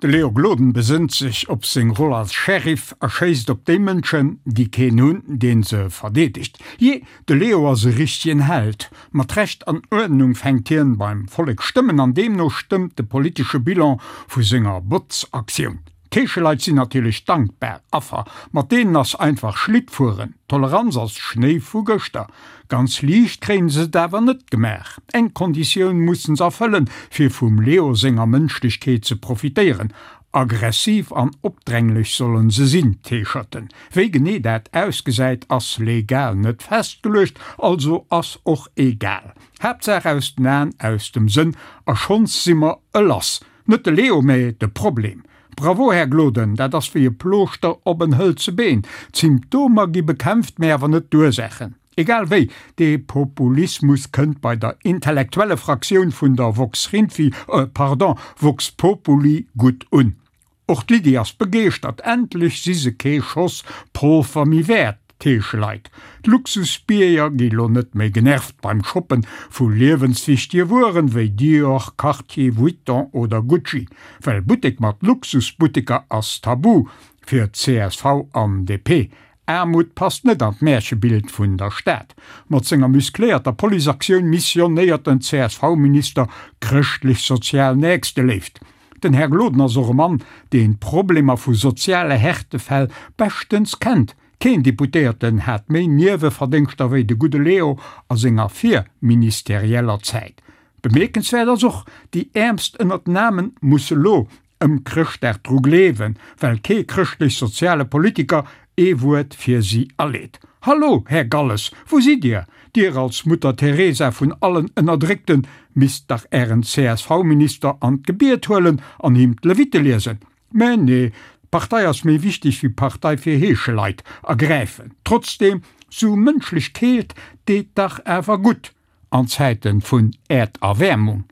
De Leo Gloden besënnt sech op seng Roll als Sheriff a schéisst op déi Mënschen, déi keen hunn, deen se verdeedegt. Jee, de Leo ass e richtegen Held. Mat Recht an Uerdnung fänkt hien beim Vollek Stëmmen an deemno stëmmt de politesche Bilan vu senger Botzaktioun. D'Heescheleit sinn natierlech dankbar Affer, mat deenen ass einfach Schlitt fueren, Toleranz ass Schnéi vu gëschter. Ganz liicht kréien se et awer net gemaach. Eng Konditioun mussen se erfëllen, fir vum Leo senger Mënschlechkeet ze profitéieren, Aggressiv an opdränglech sollen se sinn, d'Heescherten. Wéi genee dat ausgesäit, ass legal net festgeluecht, also ass och egal. Haaptsaach aus den Aen, aus dem Sënn a schonns si mer e lass. Net de Leo, mä de Problem. Bravo, Här Gloden, dat ass wéi e Plooschter op en hëlze Been. D'Symptomer gi bekämpft, mä awer net d'Ursaachen. Egal wéi, dee Populismus kënnt bei der intellektuelle Fraktioun vun der Vox Rinfi, euh, pardon, Vox Populi gutt un. Och d'Lydie ass begeeschtert, endlech si se kee Schoss Polver méi wäert, d'Heescheleit. D'Luxusbierger gi lo net méi genervt beim Shoppen vu liewenswichtege Wueren wéi Dior, Cartier, Vuitton oder Gucci. Well Buttek mat Luxusbutteker ass tabu fir csv an DP. Aarmut passt net an d'Märchebild vun der Stad. Mat senger muscléierter Policeaktioun missionéiert den CSV-Minister chrëschtlech-sozial Nächsteléift. Den Här Gloden ass och e Mann, deen d'Problemer vu soziale Härtefäll beschtens kennt. Keen Deputéierten hat méi Nieweverdéngschter wéi de gudde Leo a senger virministerieller Zäit. Bemierkenswäert ass och, déi Äermst ënnert den Aarmen musse lo ëm Chrëschtdag dru gleewen, well kee chrëschtlech-soziale Politiker ee Wuert fir si aleet. Hallo, Här Galles, wou sidd Dir? Dir als Mutter Teresa vun allen Ënnerdréckten misst dach Ären CSV-Minister an d'Gebiet huelen an him d'Levitte liesen. Mä nee, d'Partei ass méi wichteg wéi Partei fir Heescheleit ergräifen. Trotzdem, sou mënschlech Keelt deet dach awer gutt an Zäiten vun Äerderwäermung.